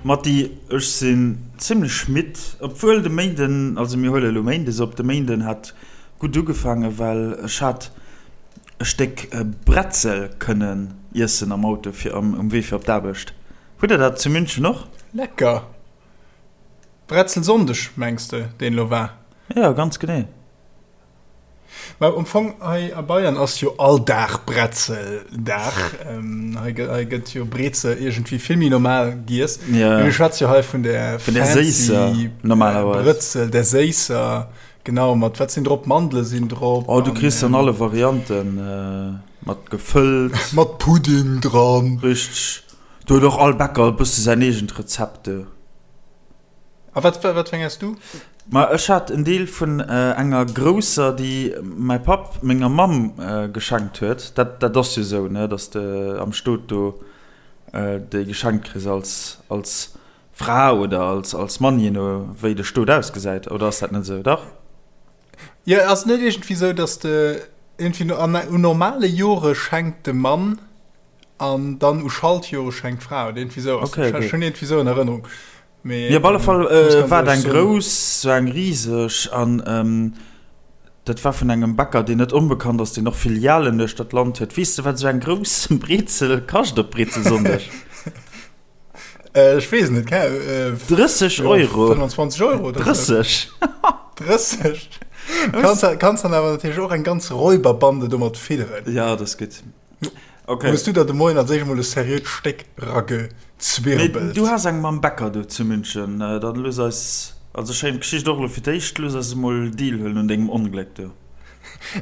Matti, ech sinn zimlech midd, obwuel de Méinden, also mir huele elo Méindes op, de Méinden hat gutt ugefaangen, well ech hat e Stéck Bretzel kënnen iessen am Auto fir um Wee fir op d'Aarbecht. Hutt der dat zu München och? Lecker! Bretzelsonndeg mengs de, deen elo war? Jo, ganz genee. Mä am Fong hei a Bayern ass jo all Dag Bretzeldag. Hei gëtt, hei gëtt jo Brezel iergendwéi vill méi normal giess. Ja. Mee mir schwätze jo hei vun der Vun der séisser, fancy normalerweis. Brëtzel, der séisser, genau, mat wat sinn drop? Mandele sinn drop. Oh, du kriss an alle Varianten, mat gefëllt. Mat Pudding dran. Richteg. Do huet och all Bäcker e bësse säin eegent Rezept do. A wat, wat fir eng has du? Ma ech hat en Deel vun enger grousser, déi mäi Papp menger Mamm geschenkt huet. Dat, dat ass jo esou, ne, dass de am Stot do déi geschenkt kriss als, als Fra oder als, als Mann, jee no wéi de Stot ausgesäit. Oder ass dat net esou? Dach? Jo, ass et net iergendwéi esou, dass de iergendwéi an, un normale Jore schenkt de Mann an dann u Schaltjore schenkt d'Fra oder iergendwéi esou ass Okay, dat. okay. Ech hunn iergendwéi esou an Erënnerung. Mee op alle Fall war et eng grouss, sou eng riseg an dat war vun engem Bäcker, deen net onbekannt ass, deen och Filialen duerch dat Land huet. Weess de, wat esou eng grouss Brezel kascht op Brezelsonndeg? Ech weess et net, 30 Euro! 25 Euro oder sou. 30! 30! Kanns, kanns dann awer natierlech och eng ganz Räuberbande domat fidderen. Ja, dat ass gutt. Okay. Hues du der de Moien als éischt emol e seriöt Stéck ragezwirbelt? Mee du has eng mam Bäcker do zu München. Dann looss eis, also schéin Geschicht och elo fir d'éischt, looss eis emol Deel huelen un dengem Ongléck do.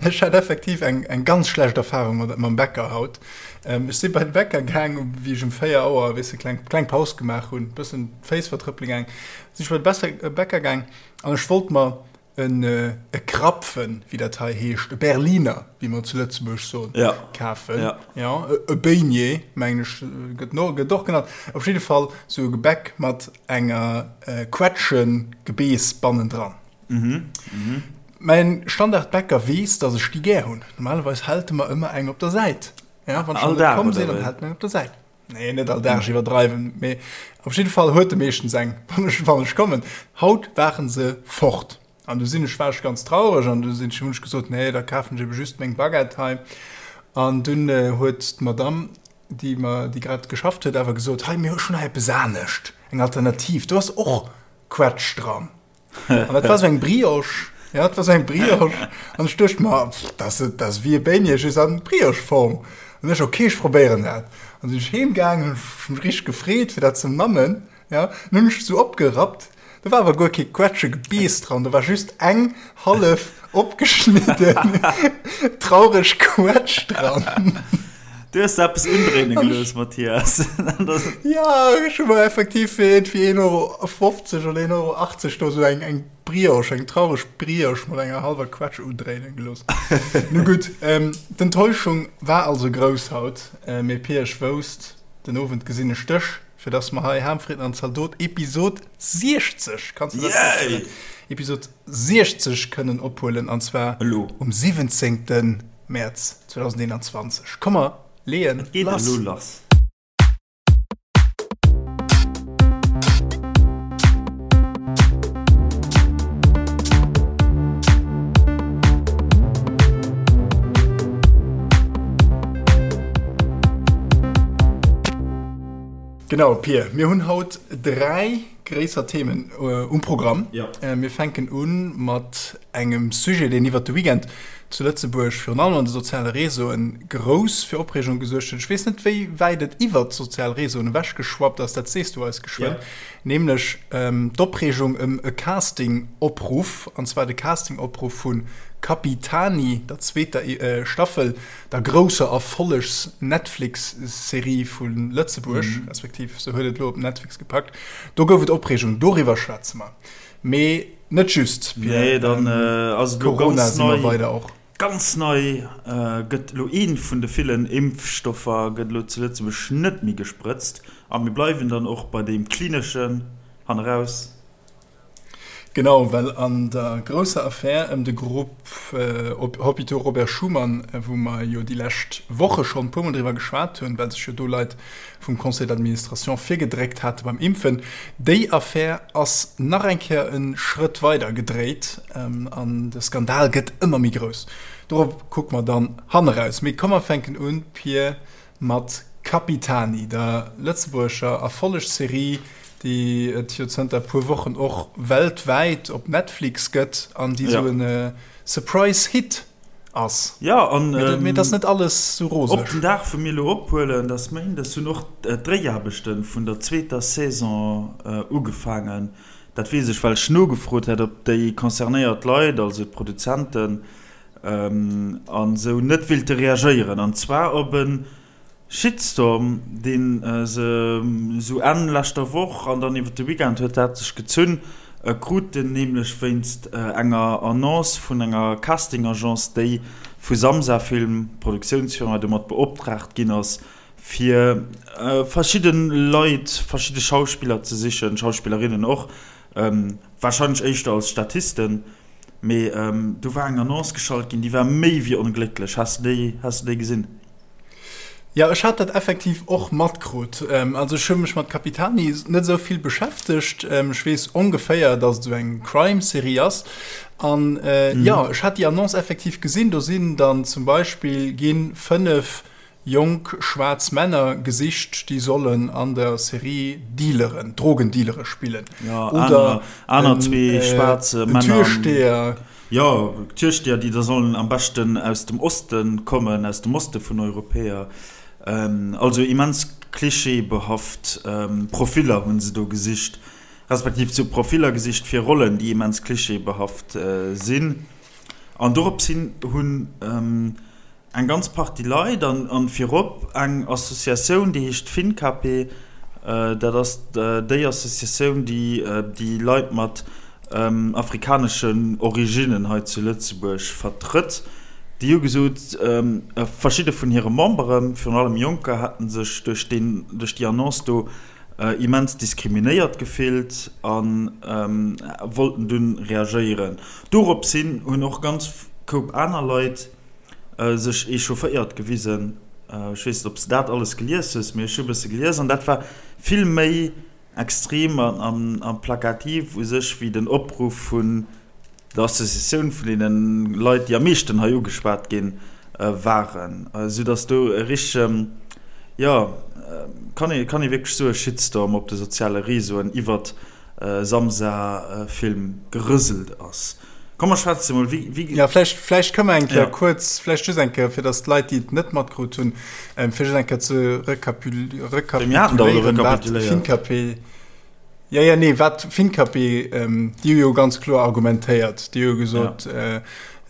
Ech hat effektiv eng eng ganz schlecht Erfahrung mat mam Bäcker haut. Ech si bei de Bäcker gaang, wéi ech um 4 Auer, weess de, kleng kleng Paus gemaach hunn, bëssen d'Féiss vertrëppele gaang, sinn ech bei de Bäcker gaang an ech wollt mer en e Krapfen, wéi dat hei heescht, e Berliner, wéi mer zu Lëtzebuerg soen, ja. kafen. Ja. Ja, e Beignet, mengen ech, gëtt no, gëtt och genannt. Op jidde Fall sou e Gebäck mat enger äh, Quetschengebeess bannendran. Mhm. Mhm. Mäin Standardbäcker weess, dass ech déi gär hunn. Normalerweis hält e mer ëmmer eng op der Säit. Ja, wann ech All net Dag, komm oder sinn, dann wéi? hält en eng op der Säit. Nee, net all Dag, ech iwwerdreiwen, mee op jidde Fall huet e meeschtens eng, wann ech, wann ech kommen. Haut waren se fort an du sinn ech, war ech ganz traureg an du sinn ech, hunn ech gesot, nee, da kafen ech ebe just meng Baguette hei. An dunn huet d'Madame, déi mer, déi grad geschafft huet, awer gesot, hei, mir hu schonn hei eppes anescht, eng Alternativ, do ass och Quetsch dran. An dat war sou eng Brioche, ja, dat war sou eng Brioche. An ech duecht mer, pff, dat ass, dat ass wéi e Beignet, just an Brioche-Form. An ech, okay, ech probéieren dat. An sinn ech heem gaangen, hunn ech mech richteg gefreet, fir dat ze mammen, ja. An hunn ech sou opgerappt, do war awer guer kee Quetschegebeess dran, do war just eng hallef opgeschnidden traureg Quetsch dran. Du hues der eppes undréine gelooss, Mathias. Ja, ech hu mer effektiv fir iergendwéi 1,50 Euro oder 1,80 Euro do sou eng, eng Brioche, eng traureg Brioche mat enger hallwer Quetsch undréine gelooss. Nu gutt, d'Enttäuschung war also grouss haut, mee Pir, ech wousst, den Owend gesinn ech dech, fir dass mer hei Ham, Fritten an Zaldot Episod 60, kanns de dat virstellen? Episod 60 kënnen ophuelen, an zwar Elo. um 17. Mäerz 2021. Komm mer leeën Et geet lass. elo lass. Genau, Pir, mir hunn haut 3 gréisser Themen um Programm. Ja. Mir fänken u mat engem Sujet, deen iwwert de Weekend zu Lëtzebuerg, virun allem an de soziale Réseauen, grouss fir Opreegung gesuergt huet. Ech weess net, wéi wäit et iwwert d'sozial Réseauen ewechgeschwappt ass, dat sees du eis geschwënn, nämlech d'Opreegung ëm e Casting-Opruff, an zwar de Casting-Opruff vu Capitani, der zweeter Staffel, der grousser Erfollegs-Netflix-Serie vu Lëtzebuerg, respektiv se huet et elo op Netflix gepackt. Do gouf et Opreegung, doriwwer schwätze mer. Mee net just, Pierre. Nee, dann ass et elo Corona ganz si mer nei. weider och. Ganz nei gëtt elo ee vun de villen Impfstoffer gëtt elo zu Lëtzebuerg net méi gesprëtzt. A mir bleiwen dann och bei deem klineschen hanneraus. Genau, well an der grousser Affär ëm de Grupp Hôpitaux Robert Schuman, wou mer jo déi lescht Woche schonn e puermol driwwer geschwat hunn, well sech jo do Leit vum Conseil d'administration virgedréckt hate beim Impfen, déi Affär ass nach eng Kéier e Schrëtt weider gedréit an de Skandal gëtt ëmmer méi grouss. Dorop kucke mer dann hanneraus. Mee komm mer fänken un, Pir, mat Capitani, der lëtzebuergescher Erfollegsserie, déi et jo zënter e puer Wochen och weltwäit op Netflix gëtt an déi sou e Surprise-Hit ass. Jo, an Mee et ass net alles sou roseg. Op den Dag, wou mir elo ophuelen, dat ass Méindes, hunn och d'Dréiaarbechte vun der zweeter Saison ugefaangen. Dat weess ech, well ech nogefrot hat, ob déi concernéiert Leit, also d'Produzenten, an esou net willte reagéieren, an zwar op e Shitstorm, dee se esou Enn leschter Woch an dann iwwer de Weekend huet dat sech gezunn, kruten, nämlech wéinst enger Annonce vun enger Casting-Agence, déi vu Samsa Film, Produktiounsfirma, domat beoptraagt ginn ass, fir verschidde Leit, verschidde Schauspiller ze sichen, Schauspillerinnen och, warscheinlech éischter als Statisten. Mee do war eng Annonce geschalt ginn, déi war méi wéi onglécklech. Has de déi, has de déi gesinn? Jo, ech hat dat effektiv och matkrut. Also ech hu mech mat Capitani net esou vill beschäftegt. Ech weess ongeféier, datt et esou eng Crime-Serie ass. An jo, ech hat déi Annonce effektiv gesinn. Do sinn dann zum Beispill gi 5 Jonk schwaarz Männer gesicht, déi sollen an der Serie Dealeren, Drogendealere spillen. Ja, Oder aner, aner zwee schwaarz Männer. Türsteher. Jo, Türsteher, déi da sollen am beschten aus dem Oste kommen, aus dem Oste vun Europäer. Also immens klischeebehaft Profiller hu se do gesicht, respektiv se hu Profiller gesicht fir Rollen, déi immens klischeebehaft sinn. An dorops hin hunn Eng ganz Partie Leit an virop eng Associatioun, déi heescht FINCAPE. Dat ass déi Associatioun, déi déi Leit mat afrikaneschen Originnen hei zu Lëtzebuerg vertrëtt. Déi hu gesot, verschidde vun hire Memberen, virun allem Jonker, hätte sech duerch deen, duerch déi Annonce do immens diskriminéiert gefillt a wollten dunn reagéieren. Dorops hin hunn och ganz Koup aner Leit sech echaufféiert gewisen. Ech weess net, ob s de dat alles gelies hues, mee ech hu e bësse gelies an dat war vill méi extrem a plakativ u sech wéi den Opruff vun der Associatioun vun deene Leit, déi am meeschten hei ugeschwat gi waren, soudatt do e richtege, jo, kann ee, kann ee wierklech soen, Shitstorm op de soziale Reseauen iwwert Samsa-Film gerëselt ass. Komm mer schwätze mol, wéi, wéi. Ja, vläicht, vläicht kënne mer eng Kéier ja. kuerz, vläicht just eng Kéier, fir datt d'Leit, déi et net matkrut hunn, ähm, fir just eng Kéier ze rekapituléieren, wat Finkapé. Ja, ja, nee, wat Finkapé, ähm, déi hu jo ganz kloer argumentéiert. Déi hu gesot, ja.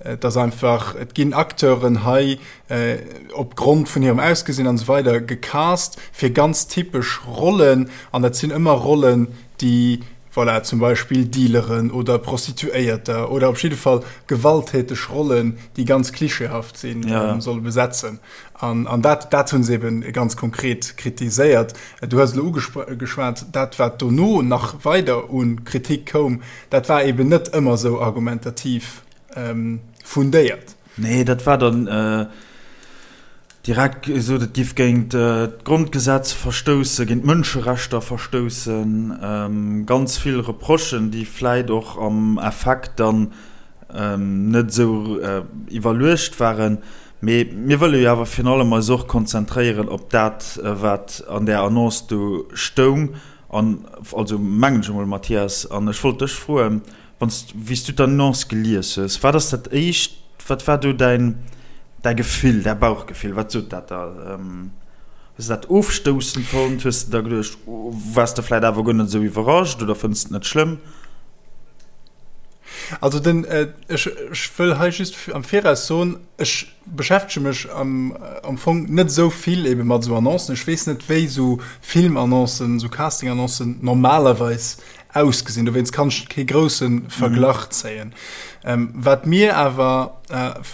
äh, dass einfach, et ginn Acteuren hei äh, op Grond vun hirem Ausgesinn an esou weider gecast fir ganz typesch Rollen, an dat sinn ëmmer Rollen, déi Voilà, zum Beispill Dealeren oder Prostituéierter oder op jidde Fall gewalttäteg Rollen, déi ganz klischeehaft sinn, ja. solle besetzen. An, an dat, dat hunn se eben ganz konkret kritiséiert. Du hues elo ugeschwat, dat wat dono nach weider u Kritik koum, dat war eben net ëmmer esou argumentativ ähm, fundéiert. Nee, dat war dann äh, Direkt gesot, et giff géint d'Grondgesetz verstoussen, géint d'Mënscherechter verstoussen. Ganz vill Reprochen, déi vläit och am Effekt dann net esou iwwerluecht waren. Mee mir wëlle jo awer virun allem eis och konzentréieren op dat, wat an där Annonce do stoung. An also mengen ech emol, Mathias, an ech wollt dech froen, Wann s, wéi s du d'Annonce gelies hues, wat ass dat éischt, wat war do däin, däi Gefill, däi Bauchgefill, wat sot dat der? Hues de dat ofstoussend fonnt? Hues de der geduecht, waars de vläit awer guer net esou iwwerrascht oder fënns de et net schlëmm? Also den, ech, ech wëll hei just am Viraus soen, ech beschäftege mech am, am Fong net esou vill ebe mat esou Annoncen. Ech weess net, wéi esou Filmannoncen, esou Castingannoncen normalerweis ausgesinn. Dowéinst kann ech kee grousse Verglach zéien. Wat mir awer,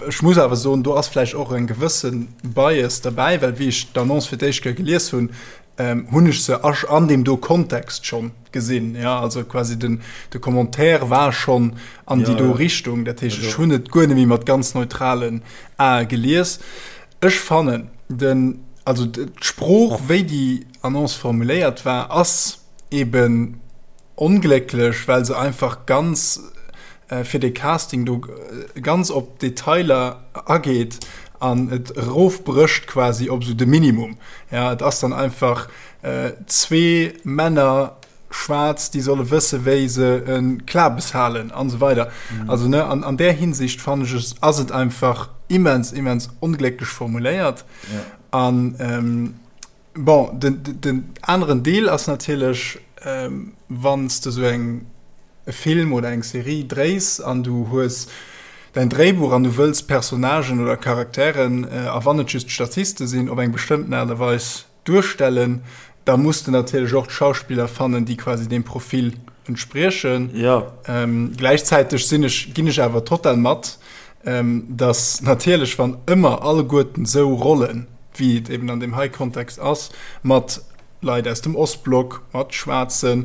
ech muss awer soen, do ass vläicht och eng gewësse Bias derbäi, well wéi ech d'Annonce fir d'éischt Kéier gelies hunn, Hunn ech se an deem do Kontext schonn gesinn. Ja, also quasi den, de Commentaire war schonn an déi do Richtung. Dat heescht, ech hunn et guer net méi mat ganz neutralen Ae gelies. Ech fannen den, also d'Sprooch, wéi déi Annonce formuléiert war, ass eben Onglécklech, well se einfach ganz fir de Casting do ganz op Detailer ageet an et erofbrécht quasi op esou de Minimum. Ja, et ass dann einfach zwee Männer, schwaarz, déi solle wësse wéi se e Klabes halen an esou weider. Also ne, an an där Hinsicht fannen ech es ass et einfach immens, immens onglécklech formuléiert. An Bon, den, den aneren Deel ass natierlech, wann s de esou eng, e Film oder eng Serie dréis an du hues däin Dréibuch an du wëlls Personnagen oder Charakteren, a wann et just Statiste sinn, op eng bestëmmten Aart a Weis duerstellen, da muss de natierlech och d'Schauspiller fannen, déi quasi deem Profil entspriechen. Ja. Gläichzäiteg sinn ech, ginn ech awer total mat, dass natierlech, wann ëmmer alleguerten esou Rollen, wéi et eben an deem hei Kontext ass, mat Leit aus dem Ostblock, mat Schwaarze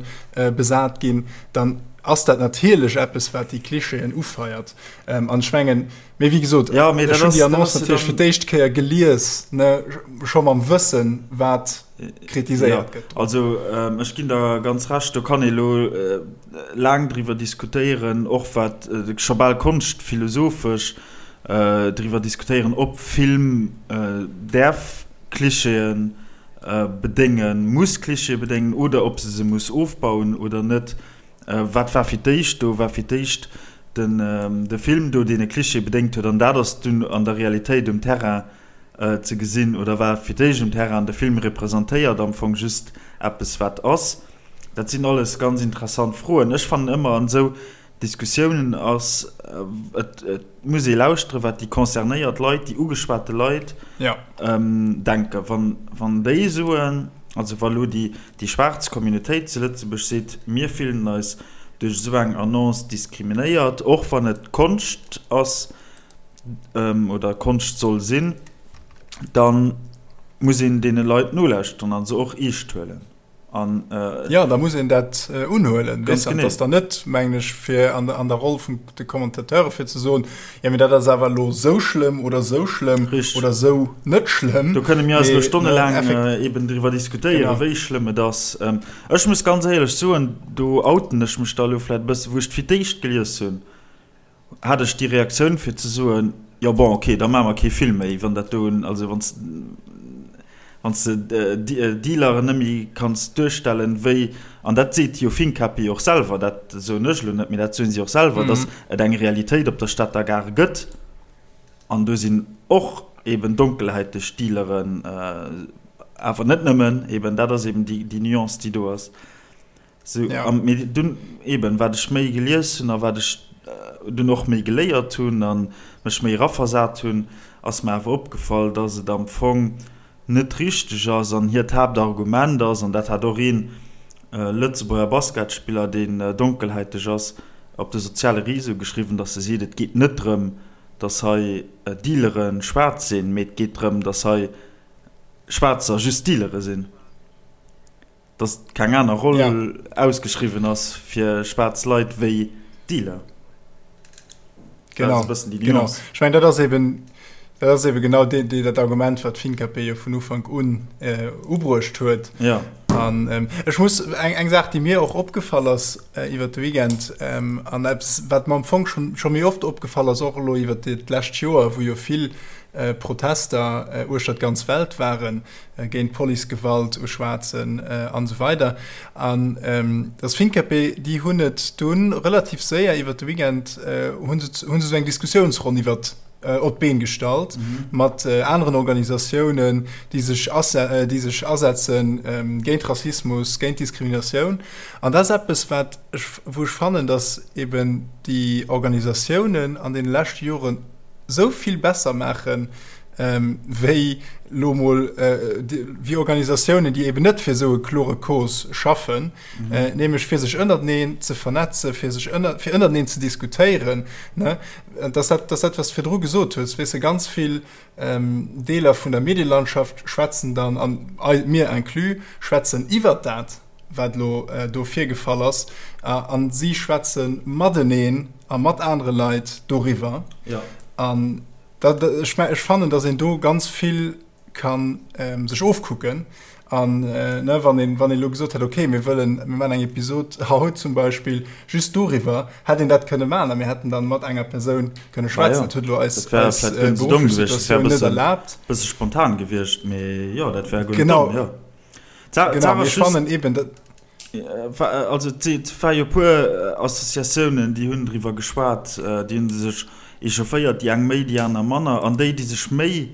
besat ginn, dann ass dat natierlech eppes, wat déi Klischeeën ufeiert. An ech mengen, mee wéi gesot, ech hunn déi Annonce natierlech fir d'éischt Kéier gelies, ne, scho mam Wëssen, wat kritiséiert gëtt. Also ech ginn der ganz Recht, do kann ee lo laang driwwer diskutéieren, och wat scho bal konschtphilosophesch, driwwer diskutéieren, ob Film däerf Klischeeë bedéngen, muss Klischeeë bedéngen oder ob se se muss ofbauen oder net. Wat war fir d'éischt do? War fir d'éischt de Film do, deen e Klischee bedéngt huet an dat ass dunn an der Realitéit um Terrain ze gesinn? Oder war fir d'éischt um Terrain an de Film representéiert am Fong just eppes, wat ass? Dat sinn alles ganz interessant Froen. Ech fannen ëmmer an esou Diskussiounen ass, et muss ee lauschteren, wat déi concernéiert Leit, déi ugeschwate Leit denken. Wann déi soen, also wa lo déi schwaarz Communautéit zu Lëtzebuerg seet, mir fillen eis duerch esou eng Annonce diskriminéiert, och wann et Konscht ass oder Konscht soll sinn, da muss een deene Leit nolauschteren a se och eescht huelen. An, äh, ja, da muss een dat äh, unhuelen. Ganz genau. Das dann net mengen ech fir an, an der Roll vun de Kommentateure fir ze soen, ja, mir dat ass awer lo sou schlëmm oder sou schlëmm oder sou net schlëmm. Do kënne mir eis lo stonnelaang äh, eben driwwer diskutéieren, wéi schlëmm et ass. Ähm, ech muss ganz éierlech soen, do outen ech mech da lo vläit e bësse, wou ech fir d'éischt gelies hunn, hat ech déi Reaktioun fir ze soen, jo bon ok, da maache mer kee Film méi, wann dat do, also wann s wann s de Dealeren net méi kanns duerstellen, wéi, an dat seet jo Finkapie och selwer, dat soen ech elo net, mee dat soen si och selwer, datt et eng Realitéit op der Stater Gare gëtt an do sinn och eben donkelhäiteg Dealeren, awer net nëmmen, eben dat ass eben déi Nuance déi do ass. Sou, ja. An mee dunn eben, wat ech méi gelies hunn a wat ech dunn och méi geléiert hunn a mech méi eraversat hunn, ass mer awer opgefall, dass et am Fong net richteg ass an hiert Haaptargument ass, an dat hat och een Lëtzebuerger Basketspiller, deen donkelhäiteg ass, op de soziale Réseau geschriwwen, dass e seet, et geet net drëm, dass hei Dealere schwaarz sinn, mee et geet drëm, dass hei Schwaarzer just Dealere sinn. Dass keng aner Roll ja. ausgeschriwwen ass fir schwaarz Leit wéi Dealer. Genau. genau. Ech meng dat ass eben dat ass eben genau de, de, dat Argument wat FinKP jo vun Ufank un äh, ubruecht huet. Ja. An ähm, ech muss eng, eng Saach, déi mir och opgefall ass äh, iwwer de Weekend ähm, an eppes wat mer am Fong schon, schon méi oft opgefall ass och elo iwwer d'lescht Joer, wou jo vill äh, Protester äh, uechter d'ganz Welt waren, géint Policegewalt u Schwaarzen an esou weider. An dass Finkapé, déi hunn et dunn relativ séier iwwert de Weekend hu se hu se esou eng Diskussiounsronn iwwert op d'Been gestallt mat aneren Organisatiounen, déi sech déi sech asetze géint Rassismus, géint Diskriminatioun. An dat ass eppes, wat ech wou ech fannen, dass eben déi Organisatiounen an deene leschte Joren esou vill besser maachen. wéi lo mol wéi Organisatiounen, déi eben net fir esou e klore Cause schaffen, nämlech fir sech ënnerteneen ze vernetzen, fir sech ënner, fir ënnerteneen ze diskutéieren, ne? Dass dat, dass dat, wat s de virdru gesot hues, weess de, ganz vill Deeler vun der Medielandschaft schwätzen dann, an mir inclus, schwätzen iwwert dat, wat elo do virgefall ass, a si schwätze mateneen a mat anere Leit doriwwer. An dat, ech, ech fannen, datt een do ganz vill ka sech ofkucken. An ne, wann een, wann een elo gesot hätt, okay, mir wëllen, mir maachen eng Episod haut zum Beispill just doriwwer, hätt een dat kënne maachen a mir hätten dann mat enger Persoun kënne schwätzen. Dat huet elo eis, eis berufflech Situatioun net erlaabt. Bësse spontan gewiescht, mee jo, dat wär guer net domm, jo. Genau, mee ech fannen eben, dat. Also et war jo e puer Associatiounen, déi hunn driwwer geschwat, déi hu sech echaufféiert, déi eng méi, déi aner manner. An déi, déi sech méi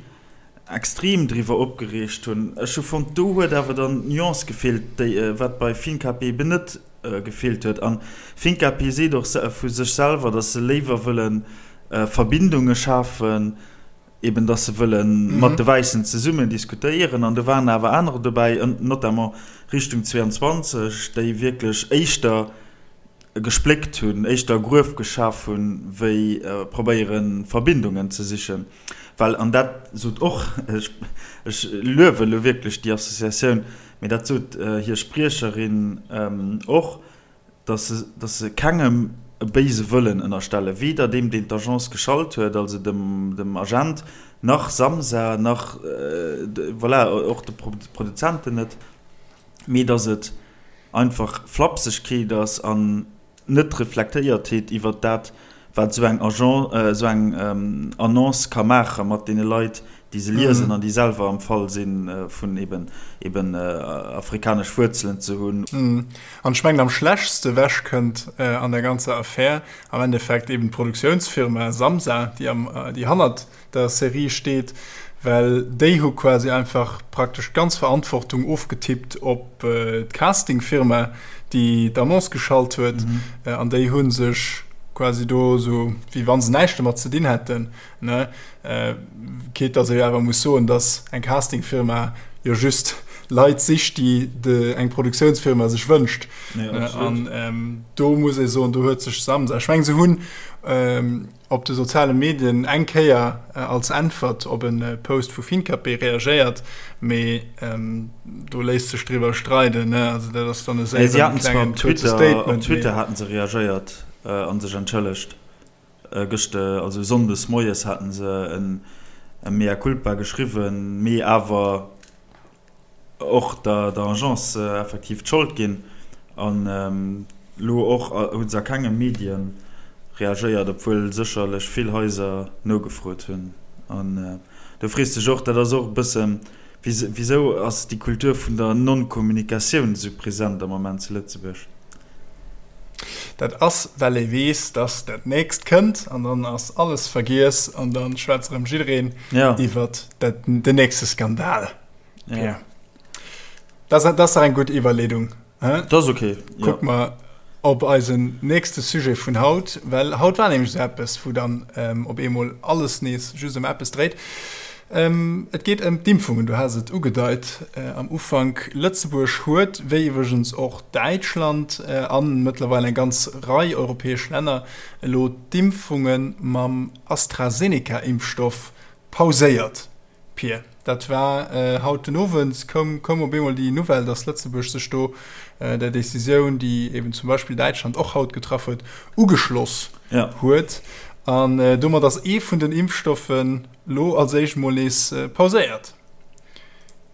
extrem driwwer opgereegt hunn, ech hu fonnt, do huet awer dann d'Nuance gefeelt, déi wat bei Finkapé eben net gefeelt huet. An Finkapé seet och vu sech selwer, datt se léiwer wëlle Verbindunge schafen, eben datt se wëlle mat de Wäissen zesummen diskutéieren. An do waren awer anerer dobäi, notamment Richtung 22, déi wierklech éischter gespléckt hunn, éischter e Gruef geschaf hunn, wéi probéiere Verbindungen ze sichen. Well, an dat sot och, ech luewe elo wierklech déi Associatioun, mee dat sot hir Spriecherin och, datt se, datt se kengem e béise Wëllen ënnerstellen, weder deem, deen d'Agence geschalt huet, also dem, dem Agent, nach Samsa, nach, voilà, och de Produzenten net, mee datt et einfach Flapsegkeet ass an net Reflektéiertheet iwwert dat, wat esou eng Agence, esou eng Annonce ka maache mat deene Leit, déi se liesen an déi selwer am Fall si vun eben eben afrikanesch Wuerzelen ze hunn. An ech mengen, am schlechtste ewech kënnt an der ganzer Affär am Endeffekt eben d'Produktiounsfirma Samsa, déi am, déi hannert der Serie steet, well déi hu quasi einfach praktesch d'ganz Verantwortung ofgetippt op d'Castingfirma, déi d'Annonce geschalt huet, an déi hu sech quasi do esou wéi wa se näischt domat ze dinn hätten, ne? Quitte dass ee jo awer muss soen, dass eng Castingfirma jo just Leit sicht, déi eng Produktiounsfirma sech wënscht. An do muss ee soen, do huet sech Samsa, ech mengen se hunn, op de soziale Medien eng Kéier als Äntwert op e Post vu Finkapé reagéiert, mee do léisst sech driwwer streiden, ne? Also dat ass dann e séieren klengen kuerze Statement. Op Twitter haten se reagéiert a sech entschëllegt. Gëscht, also Sonndes moies haten se e Mea culpa geschriwwen, mee awer och der Agence effektiv d'Schold ginn. An elo och hu se a kenge Medie reagéiert, obwuel sécherlech vill Haiser nogefrot hunn. An do frees de dech och, dat ass och e bëssen, wisou ass déi Kultur vun der Non-Kommunikatioun esou present am Moment zu Lëtzebuerg? Dat ass, well ee weess, dass dat nächst kënnt an dann ass alles vergiess an da schwätzt erëm jiddereen iwwert den nächste Skandal. Ja. Dat ass dach eng gutt Iwwerleedung. Dat ass okay. Kuck mer op eisen nächste Sujet vun haut, well haut war nämlech esou eppes, wou dann op eemol alles nees just ëm eppes dréit. Et geet ëm d'Impfungen, du has et ugedeit am Ufank. Lëtzebuerg huet, wéi iwwregens och Däitschland a mëttlerweil eng ganz Rei europäesch Länner, elo d'Impfunge mam AstraZeneca-Impfstoff pauséiert. Pir, dat war haut den Owend, koum koum op eemol déi Nouvelle, datt Lëtzebuerg sech do der Decisioun, déi eben zum Beispill Däitschland och haut getraff huet, ugeschloss huet. An domat ass ee vun den Impfstoffen lo als éischt mol nees pauséiert.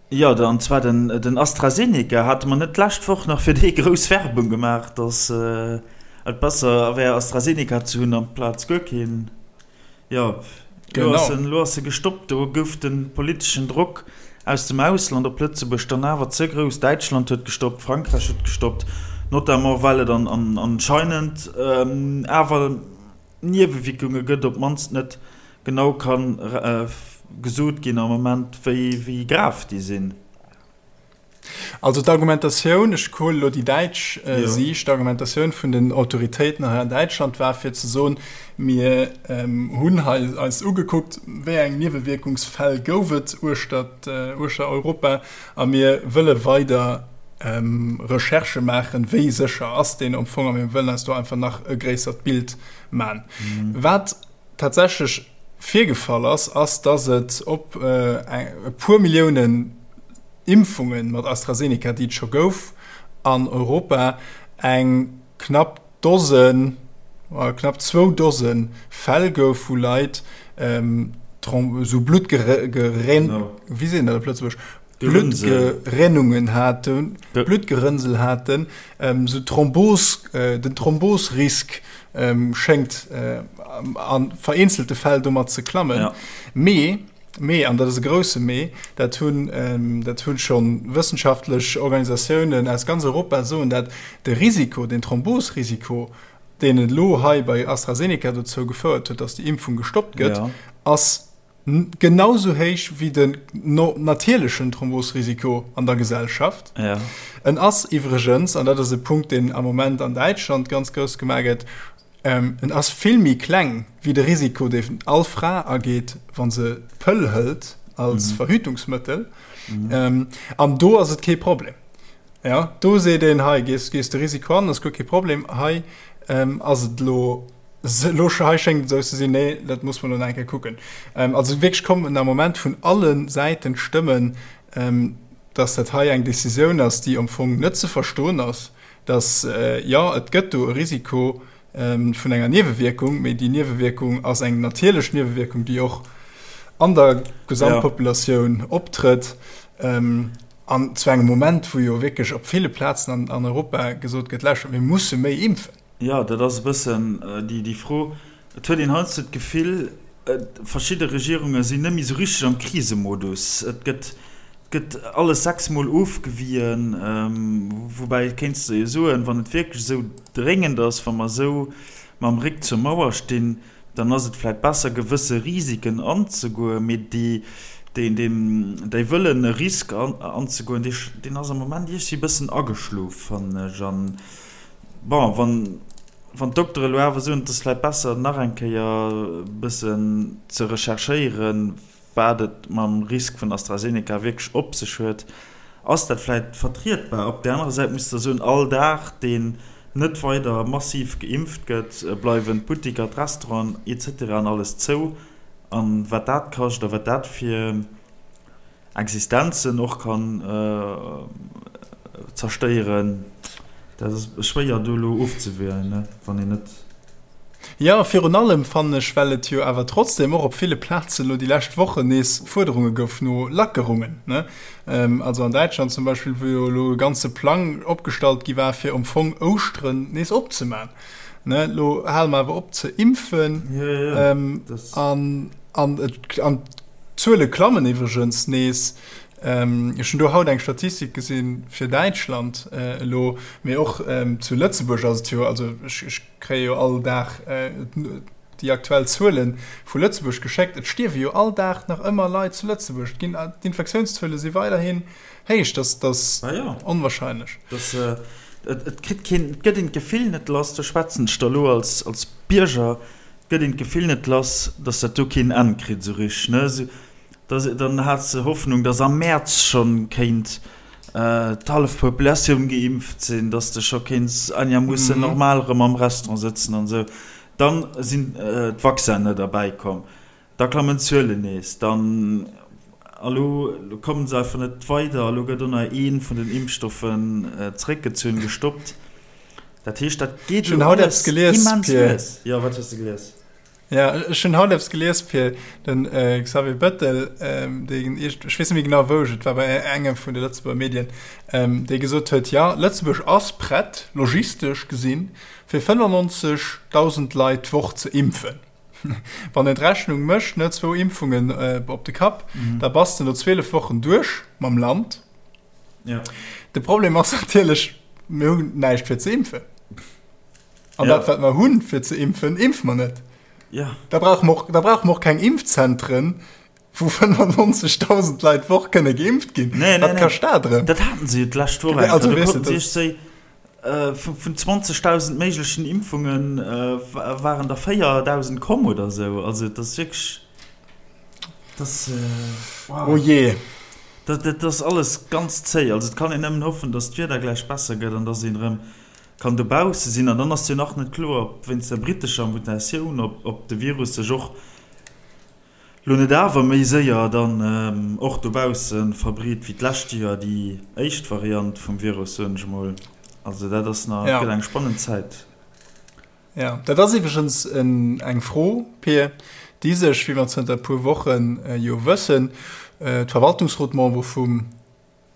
Jo, an zwar den AstraZeneca. Hate mer net d'lescht Woch nach fir dee grouss Werbung gemaach, datt et besser wär AstraZeneca ze hunn amplaz guer keen? Jo, elo ass en, elo ass e gestoppt. Do gouf de politeschen Drock aus dem Ausland op Lëtzebuerg dann awer ze grouss. Däitschland huet gestoppt, Frankräich huet gestoppt, notamment well et anscheinend awer Niewewierkunge gëtt, op d'mannst net genau ka gesot ginn am Moment, wéi grav déi sinn. Also d'Argumentatioun, ech huelen elo déi däitsch Siicht, d'Argumentatioun vun den Autoritéiten hei an Däitschland war fir ze soen, mir hunn hei eis ugekuckt, wéi eng Niewewierkungsfäll gouf et uechter uechter Europa a mir wëlle weider Recherchë maachen, wéi sécher ass deen am Fong a mir wëllen eis do einfach nach e gréissert Bild man. Wat tatsächlech virgefall ass, ass, dass et op e puer Milliounen Impfunge mat AstraZeneca, déi et scho gouf an Europa, eng knapp Dosen, knapp zwou Dose Fäll gouf, wou Leit esou Bluttgerén, wéi seet een dat op Lëtzebuergesch? Bluttgerinnungen haten, Bluttgerënnsel haten, esou Thrombos, den Thrombosrisk schéngt a vereenzelte Fäll domat ze klammen. Mee, mee, an dat ass e grousse Mee, dat hunn, dat hu scho wëssenschaftlech Organisatiounen aus ganz Europa soen dat, de Risiko, den Thrombosrisiko, deen elo hei bei AstraZeneca dozou gefouert huet, datt déi Impfung gestoppt gëtt, ass genau sou héich wéi den natierlechen Thrombosrisiko an der Gesellschaft. Ja. En ass iwwregens, an dat ass e Punkt, deen am Moment an Däitschland ganz grouss gemaach gëtt, en ass vill méi kleng wéi de Risiko, deen all Fra ageet, wa se d'Pëll hëlt als Verhütungsmëttel. An do ass et kee Problem. Ja, do seet een, hei gees, gees de Risiko an, ass guer kee Problem. Hei ass et elo Elo hei schéngt et esou ze sinn, nee, dat muss mer elo nach eng Kéier kucken. Also wierklech kommen am Moment vun alle Säiten d'Stëmmen, dass dat hei eng Décisioun ass, déi am Fong net ze verstoen ass, dass, jo, et gëtt do e Risiko vun enger Niewewierkung, mee déi Niewewierkung ass eng natierlech Niewewierkung, déi och an der Gesamtpopulatioun optrëtt. An zu engem Moment, wou jo wierklech op ville Plazen an Europa gesot gëtt, Lauschtert, mir musse méi impfen. Jo, dat ass e bëssen déi Fro. Et huet een heiansdo d'Gefill, verschidde Regierunge sinn net méi esou richteg am Krisemodus. Et gëtt, gëtt alles sechsmol ofgewien. Woubäi kéints de jo soen, wann et wierklech esou dréngend ass, wa mer esou mam Réck zur Mauer stinn, dann ass et vläicht besser, gewësse Risiken anzegoen. Mee déi, deen, Wëllen, e Risk anzegoen, deen ass am Moment iergendwéi e bëssen ageschlof, fannen ech. An Bon, wann, wann d'Doktere lo awer soen, et ass vläicht besser, nach eng Kéier e bëssen ze recherchéieren, wat et mam Risk vun AstraZeneca wierklech op sech huet, ass dat vläicht vertrietbar. Op där anerer Säit muss de soen, all Dag, deen net weider massiv geimpft gëtt, bleiwen d'Buttiker, d'Restauranten, et cetera an alles zou. A wat dat kascht a wat dat fir Existenzen och kann zerstéieren, dat ass schwéier do elo ofzewielen, wann een net. Jo, virun allem fannen ech, well et jo awer trotzdem och op ville Plazen elo déi lescht Wochen nees Fuerderunge gouf no Lackerungen, ne? Also an Däitschland zum Beispill, wou jo elo e ganze Plang opgestallt gi war, fir am Fong Ouschteren nees opzemaachen, ne? Elo hale mer awer op ze impfen an an D'Zuele klammen iwwregens nees. Ech hunn do haut eng Statistik gesinn fir Däitschland elo, mee och zu Lëtzebuerg ass et jo, also ech kréie jo all Dag déi aktuell Zuele vu Lëtzebuerg geschéckt, et stierwe jo all Dag nach ëmmer Leit zu Lëtzebuerg. D'infektiounszuele si weiderhin héich. Dat ass onwahrscheinlech. Et kritt keen, et gëtt een d'Gefill net lass, do schwätzen ech da elo als Bierger, Gëtt een d'Gefill net lass, dass dat do keen Enn kritt esou richteg, ne? Esou, dass, dann hat se Hoffnung, dass am Mäerz schonn kéint d'hallef Populatioun geimpft sinn, dass de scho kéints einermoossen normal erëm am Restaurant sëtzen an esou. Dann sinn d'Vaccinen net erbäi komm, da klammen d'Zuelen nees, dann, a lo kommen se einfach net weider, a lo gëtt och nach ee vun den Impfstoffen zeréckgezunn, gestoppt. Dat heescht, dat geet elo alles immens lues. Jo, wat hues de gelies? Ja, ech hunn haut eppes gelies, Pir, den Xavier Bettel, deen, ech weess net méi genau wou, et war bei engem vun de Lëtzebuerger Medien, dee gesot huet, jo, Lëtzebuerg ass prett, logistesch gesinn, fir 95.000 Leit d'Woch ze impfen. Wann een d'Rechnung mécht, ne, zwou Impfungen op de Kapp, da bass de no 12 Wochen duerch mam Land. Ja. De Problem ass natierlech, mir hunn näischt fir ze impfen. An ja. dat, wat mer hunn fir ze impfen, impfe mer net. Ja. Da brauche mer och, da brauche mer och keng Impfzentren. Wou 95.000 Leit d'Woch kënne geimpft ginn. Nee, nee, Wat kascht dat erëm? Dat haten se jo d'lescht Woch eng Kéier. Do konnten se sech vun 20.000 méiglechen Impfunge waren der 4.000 komm oder esou. Also et ass wierklech, dat ass, wow. Oh jee. Dat, dat ass alles ganz zéi. Also et kann een nëmmen hoffen, datt d'Wieder gläich besser gëtt an datt een erëm kann dobausse sinn. An dann ass jo nach net kloer, ob wéinst der brittescher Mutatioun, ob, ob de Virus sech och Lo net awer méi séier dann och dobausse verbreet wéi d'lescht Joer déi éischt Variant vum Virus, soen ech emol. Also dat ass nach, et gëtt eng spannend Zäit. Jo, dat ass iwwregens eng Fro, Pir, déi sech, wéi mer zënter e puer Woche jo wëssen, d'Verwaltungsrotmembere vum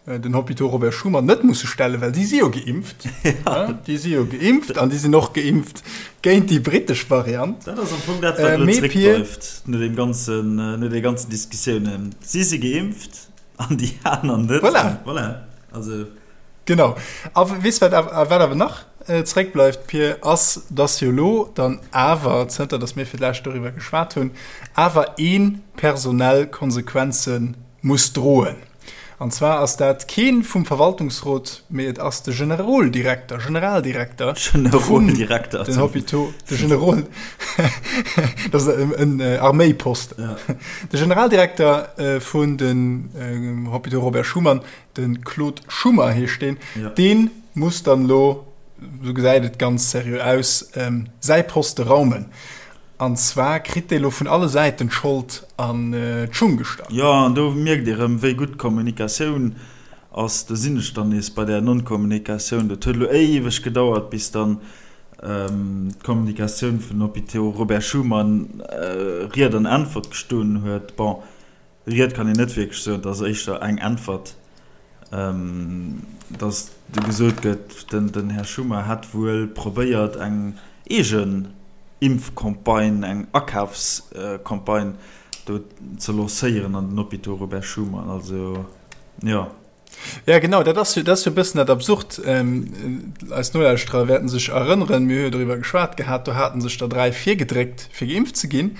den Hôpitaux Robert Schuman net musse stellen, well déi si jo geimpft. Ja. Déi si jo geimpft an déi sinn och geimpft géint déi brittesch Variant. Dat ass am Fong dat, wat elo zréckbleift no deem ganzen, no de ganzen Diskussiounen. Si si geimpft an déi aner net. Voilà. Voilà. Also. Genau. A weess wat awer, wat awer nach zréckbleift, Pir, ass, dass jo elo dann awer, zënter dass mir fir d'lescht doriwwer geschwat hunn, awer ee personell Konsequenze muss droen. An zwar ass dat kee vum Verwaltungsrot, mee et ass de Generoldirekter, Generaldirekter vun den Hôpitaux, de Generol, dat ass en Arméiposten, de Generaldirekter vun den Hôpitaux Robert Schuman, de Claude Schummer heescht deen, dee muss dann elo, esou gesäit et ganz seriö aus, säi Poste raumen. An zwar kritt dee lo vun alle Säiten d'Schold an d'Schung gestach. Jo, an do mierkt ee rëm, wéi gutt d'Kommunikatioun ass. Do sinn ech dann nees bei där Non-Kommunikatioun. Dat huet elo éiweg gedauert, bis dann d'Kommunikatioun vun Hôpitaux Robert Schuman Ried an Äntwert gestoen huet. Bon, Ried kann een net wierklech soen, et ass éischter eng Äntwert, datt do gesot gëtt, den Här Schummer hätt wuel probéiert eng eegen Impfcampagne, eng Akafscampagne do ze lancéieren an den Hôpitaux Robert Schuman. Also, jo. Ja genau, dat ass jo, dat ass jo e bëssen dat Absurd. Eis Nolauschterer wäerten sech erënneren, mir hu jo doriwwer geschwat gehat, do haten sech der 3 virgedréckt fir geimpft ze ginn.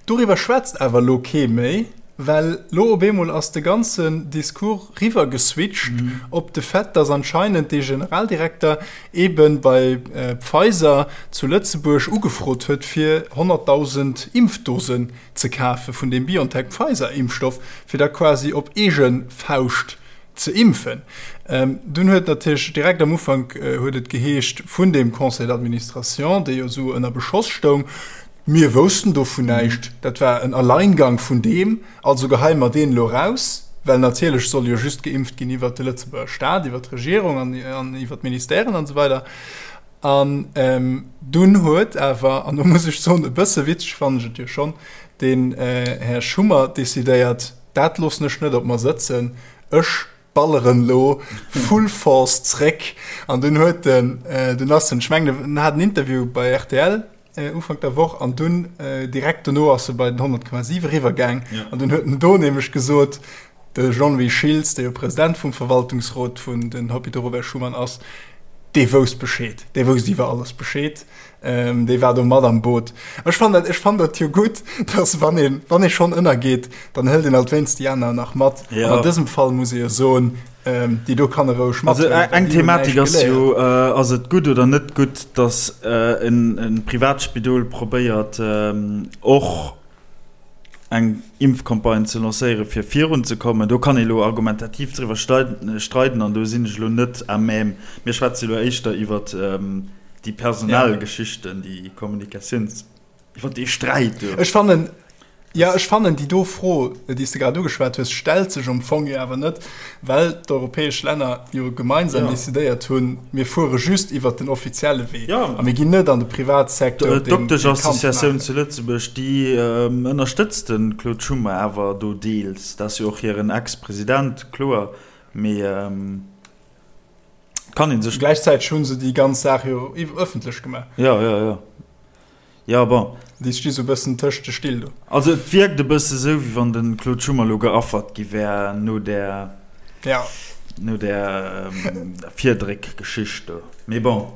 Doriwwer schwätzt awer elo kee méi, well lo op eemol ass de ganzen Discours riwwer geswitcht op de Fait, dass anscheinend dee Generaldirekter eebe bei Pfizer zu Lëtzebuerg ugefrot huet fir 100.000 Impfdosen ze kafe vun deem BioNTech-Pfizer-Impfstoff, fir da quasi op eege Fauscht ze impfen. Dunn huet natierlech direkt am Ufank huet et geheescht vun deem Conseil d'administration, dee jo esou ënner Beschoss stoung, Mir woussten dovun näischt, dat war en Alleingang vun deem, also geheie mer deen elo raus, well natierlech soll jo just geimpft ginn iwwert de Lëtzebuerger Staat, iwwert d'Regierung an iwwert d'Ministèren an esou weider. An dunn huet awer, an do muss ech soen, e bësse witzeg fannen ech et jo schonn, den Här Schummer decidéiert, dat loossen ech net op mer sëtzen, ech balleren elo full force zréck. An dunn huet en, dunn ass en, ech mengen en hat en Interview bei rtl Ufank der Woch, an dunn direkt dono ass e bei den 100,7 eriwwergaang an dunn huet en do nämlech gesot, De Jean-Louis Schiltz, dee jo President vum Verwaltungsrot vun den Hôpitaux Robert Schuman ass, dee wousst Bescheed, dee wousst iwwer alles Bescheed, dee war do mat am Boot. Ech fannen dat, ech fannen dat jo gutt, dass wann een, wann ee schonn ënnergeet, dann hëlt een alt wéinst déi aner nach mat. An an dësem Fall muss ee jo soen, déi do kann e roueg Also mathëllen, well eng déi hunn Thematik näischt ass jo, geléiert. ass et gutt oder net gutt, dass en Privatspidol probéiert och eng Impfcampagne ze lancéieren, fir virunzekommen. Do kann ee lo argumentativ driwwer streiden an do sinn ech elo net à même. Mir schwätze elo éischter iwwer déi personell Geschichten, déi Kommunikatiouns, iwwer dee Sträit do. Ech fannen, jo, ech fannen déi do Fro, déi s de grad ugeschwat hues, stellt sech am Fong jo awer net, well d'europäesch Länner jo gemeinsam decidéiert hunn, mir fuere just iwwert den offizielle Wee a mir ginn net an de Privatsecteur, deen dee Kampf D'Doktesch-Associatioun zu Lëtzebuerg, déi ënnerstëtzt de Claude Schummer awer do deels. Dat ass jo och hiren Ex-President, kloer, mee et kann ee sech. Gläichzäiteg hu se déi ganz Saach jo ëffentlech gemaach. Jo, jo, jo. Jo, bon. Déi sti sou bëssen tëscht de Still do. Also et wierkt e bësse sou, wéi wann de Claude Schummer elo geaffert gi wär no där, ja. no där Virdréck-Geschicht do. Mee bon.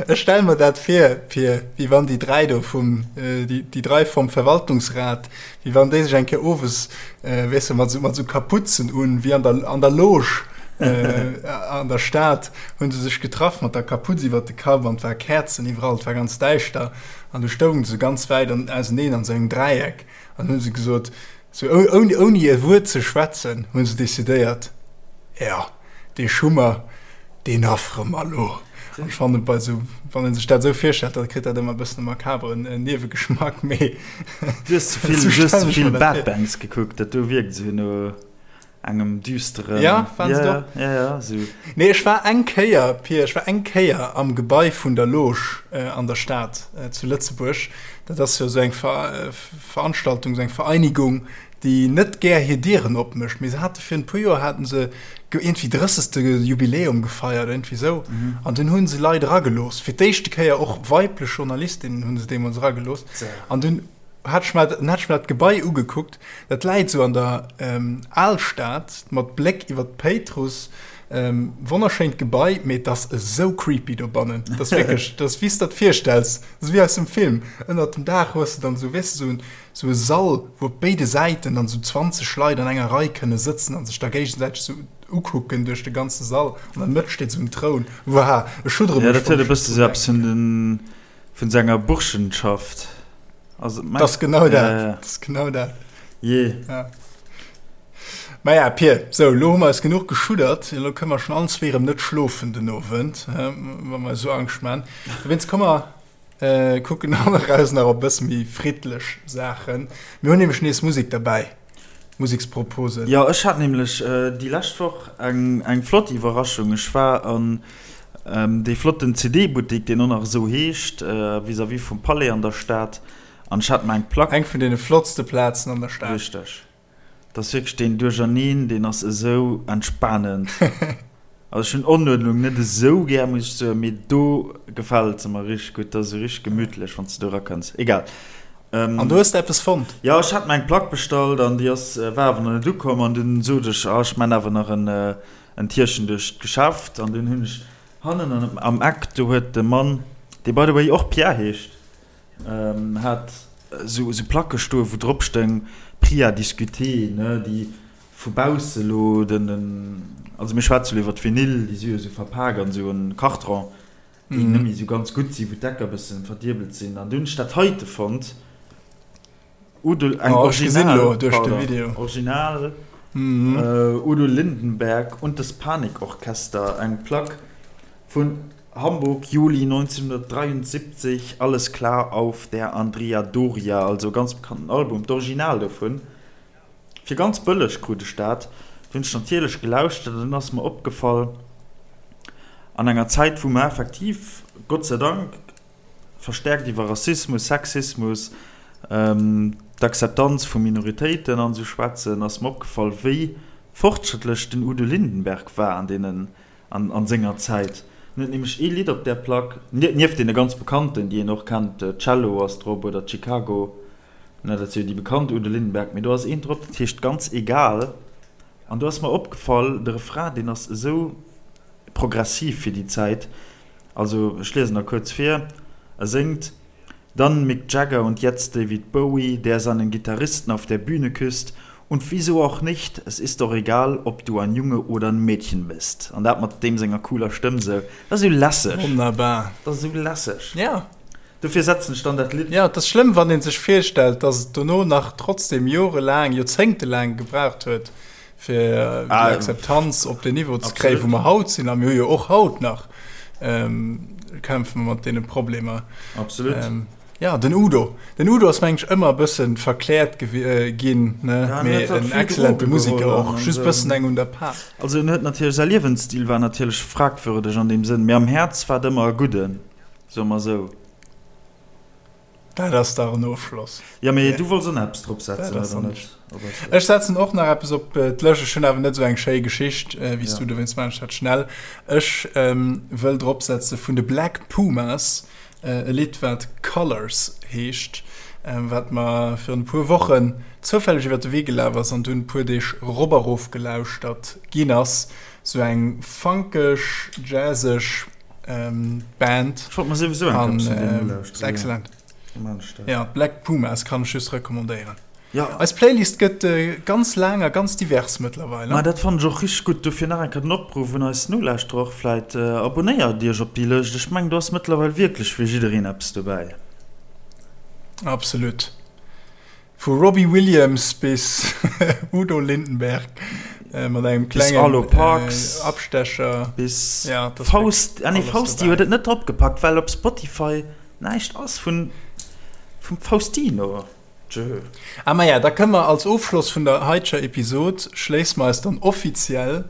Ech stelle mer dat vir, Pir, wéi wann déi 3 do vum, déi 3 vom Verwaltungsrat, wéi wann déi sech eng Kéier owes, weess de, mat esou, mat esou Kapuzen un, wéi an der, an der Loge an der Stad, hu se sech getraff mat der Kapuz iwwert de Kapp an et war Käerzen iwwerall, et war ganz däischter an du stoungen se ganz wäit an, auseneen an esou engem Dräieck an hu se gesot, esou ouni, ouni e Wuert ze schwätzen, hu se decidéiert, Jo. Dee Schummer, deen affere mer elo. An ech fannen, bei esou, wann ee sech dat esou virstellt, da kritt dat ëmmer e bëssen e makaberen Niewegeschmack, mee Du hues ze vill, esou du hues stellen ze ech vill mer dat Bad vir. Banks gekuckt, dat do wierkt esou no engem düsteren. Ja, waren Ja, se do? ja, ja, esou. Nee, ech war eng Kéier, Pir, ech war eng Kéier am Gebai vun der Loge an der Stad zu Lëtzebuerg. Dat ass jo esou eng Veranstaltung, esou eng Vereinigung, déi net gär hir Dieren opmécht, mee se hate virun e puer Joer hate se iergendwéi drëssegste Jubiläum gefeiert, iergendwéi esou, an dunn hu se Leit eragelooss, fir d'éischte Kéier och weiblech Journalistinnen hu se deemools eragelooss, an dunn hat ech mer, hat ech mer dat Gebai ugekuckt, dat läit esou an der Alstad mat Bléck iwwer d'Péitruss, wonnerschéint Gebai, mee et ass esou creepy dobannen, dat ass wierklech, dat ass wéi s de der virstells, dat ass wéi aus dem Film, ënnert dem Daach hues de dann esou, weess de, esou en Sou e Sall, wou op béide Säiten dann sou 20 Leit an enger Rei kënne sëtzen an sech da géigesäiteg sou ukucken duerch de ganze Sall. An der Mëtt steet sou en Troun. Wuah, ech schuddere Ja, mech, dat huet wann e ech bësse drun sou eppes vun denken. den, vun sou enger Burschenschaft. Also, Dat ass genau ja, dat. ja. Dat ass genau dat. Jee. Ja. Maja, Pir, sou, elo hu mer eis genuch geschuddert. Elo kënne mer schonn allen zwee erëm net schlofen den Owend, wa mer eis esou Angscht man. Dowéinst komme mer Kucken an eraus nach op bësse méi friddlech Saachen. Mir hunn nämlech nees Musek derbäi, Museksproposen. Jo, ech hat nämlech déi lescht Woch eng eng flott Iwwerraschung. Ech war an dee flotten CD-Buttik, deen och nach esou heescht, vis-à-vis vum Palais an der Stad, an ech hat mer eng Plack. Eng vun deene flottste Plazen an der Stad. Richteg. Dat ass wierklech deen Duercherneen, deen ass esou entspanend. Also ech hunn Onuerdnung net esou gär, muss ech soen, mee do gefält se mer richteg gutt. Dat ass esou richteg gemütlech, wann s de do erakënns. Egal. An du hues de eppes fonnt? Jo, ech hat mer eng Plack bestallt an déi ass, war awer nach net ukomm. An dunn sot ech, ah, ech man awer nach en, en Tierchen duerch d'Geschäft. An dunn hunn ech hannen an am Eck, do huet de Mann, dee by the way och Pierre heescht, Hat esou Placke stoen, wou drop stoung Prix à discuter, ne, déi vu bausse lo den, also mir schwätze lo iwwer d'Vinyl, déi si jo esou verpak an esou en Karton, déi net méi esou ganz gutt sinn, wou d'Ecker e bëssen verdiebelt sinn. An du hunn ech dat heite fonnt, Udo, eng Original, pardon, Original Udo Lindenberg und das Panikorchester, eng Plack vun Hamburg, Juli 1973, Alles klar auf der Andrea Doria, also e ganz bekannten Album, d'Original dovun, fir ganz bëlleg krut ech dat. Du hunn ech natierlech gelauschtert an dunn ass mer opgefall, an enger Zäit wou mer effektiv, Gott sei Dank, verstärkt iwwer Rassismus, Sexismus, d'Akzeptanz vu Minoritéiten an esou schwätzen, ass mer opgefall, wéi fortschrëttlech den Udo Lindenberg war an deenen An senger Zäit. En huet nämlech ee Lidd op där Plack, nieft deene ganz bekannten, déi een och kennt, Cello ass drop oder Chicago, ne, dat si jo déi bekannt Udo Lindenberg, mee do ass eent drop, dat heescht Ganz egal. An do ass mer opgefall, de Refrain, deen ass esou progressiv fir déi Zäit. Also ech liesen der kuerz vir, e séngt. Dann Mick Jagger und jetzt David Bowie, der seinen Gitarristen auf der Bühne küsst und wieso auch nicht, es ist doch egal, ob du ein Junge oder ein Mädchen bist. An dat mat deem senger cooler Stëmm sou, dat ass sou lässeg. Wonnerbar. Dat ass sou lässeg. Ja. Dofir setzen ech dann dat Lidd. Ja, et ass schlëmm, wann ee sech virstellt, dass et dono nach trotzdem jorelaang, joerzéngtelaang gebraucht huet, fir déi Akzeptanz op den Niveau ze kréien, wou mer haut sinn. A mir hu jo och haut nach, kämpfe mer mat deene Problemer. Absolut. Ja, den Udo. Den Udo ass, meng ech, ëmmer e bësse verkläert ginn, ne? Mee en excellente Museker och, just e bëssen eng un der Par. Also en huet natierlech, säi Liewensstil war natierlech fragwürdeg an deem Sënn, mee am Häerz war et ëmmer e Gudden, soe mer esou. Dat ass dach en Ofschloss. Jo, mee du wollts och nach eppes drop setzen, oder net? Ech setzen och nach eppes op d'Lëscht. Ech hunn awer net esou eng schéi Geschicht wéi s du, dowéinst maachen ech dat schnell. Ech wëll drop setze vun de Black Pumas e Lidd, wat Colours heescht, wat mer virun e puer Wochen zoufälleg iwwer de Wee gelaf ass an dunn e puer Deeg rop a rof gelauschtert ginn ass. Esou eng funkeg, jazzeg. Band. Ech wollt mer souwisou eng Kéier vun deenen ulauschteren. Excellent. Ja, Black Pumas kann ech just recommandéieren. Ja. Eis Playlist gëtt ganz laang a ganz divers mëttlerweil. Ma dat fannen ech och richteg gutt. Dofir nach eng Kéier den Opruff un eis Nolauschterer och vläit, Abonnéiert iech op déi Lëscht. Ech mengen do ass mëttlerweil wierklech fir jiddereen eppes dobäi. Absolut. Vu Robbie Williams bis Udo Lindenberg mat engem klengen Arlo Parks, Abstecher bis ja, Faust, ah, nee, Fausti huet et net drop gepackt, well op Spotify näischt ass vun vum Faustino. Tjö. Ah maja, da kënne mer als Ofschloss vun der haiteger Episod schléisse mer eis dann offiziell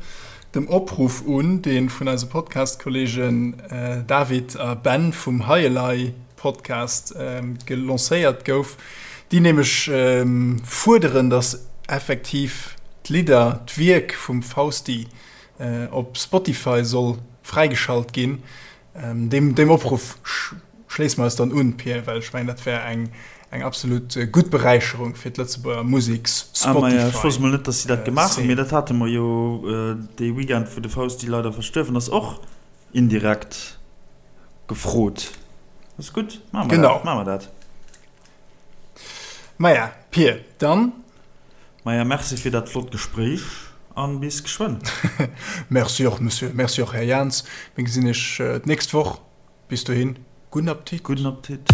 dem Opruff un, dee vun eise Podcast-Kollegen David a Ben vum Hei Elei Podcast gelancéiert gouf, déi nämlech fuerderen, datt effektiv d'Lidder, d'Wierk vum Fausti op Spotify soll fräigeschalt ginn. Deem Opruff schléisse mer eis dann un, Pir, well ech mengen, dat wär eng absolut gutt Beräicherung fir d'Lëtzebuerger Museks-Spotify-Szene. Ech wousst mol net, datt si dat gemaach hunn, mee dat hate mer jo dee Weekend, wou de Fausti leider verstuerwen ass, och indirekt gefrot. Ass gutt, maache mer dat. Maache mer dat. Maja, Pir, dann. Maja, merci fir dat flott Gespréich an bis geschwënn. Merci och, Monsieur. Merci och, Här Jans. Mir gesinn iech d'nächst Woch. Bis dohin, gudden Appetit. Gudden Appetit.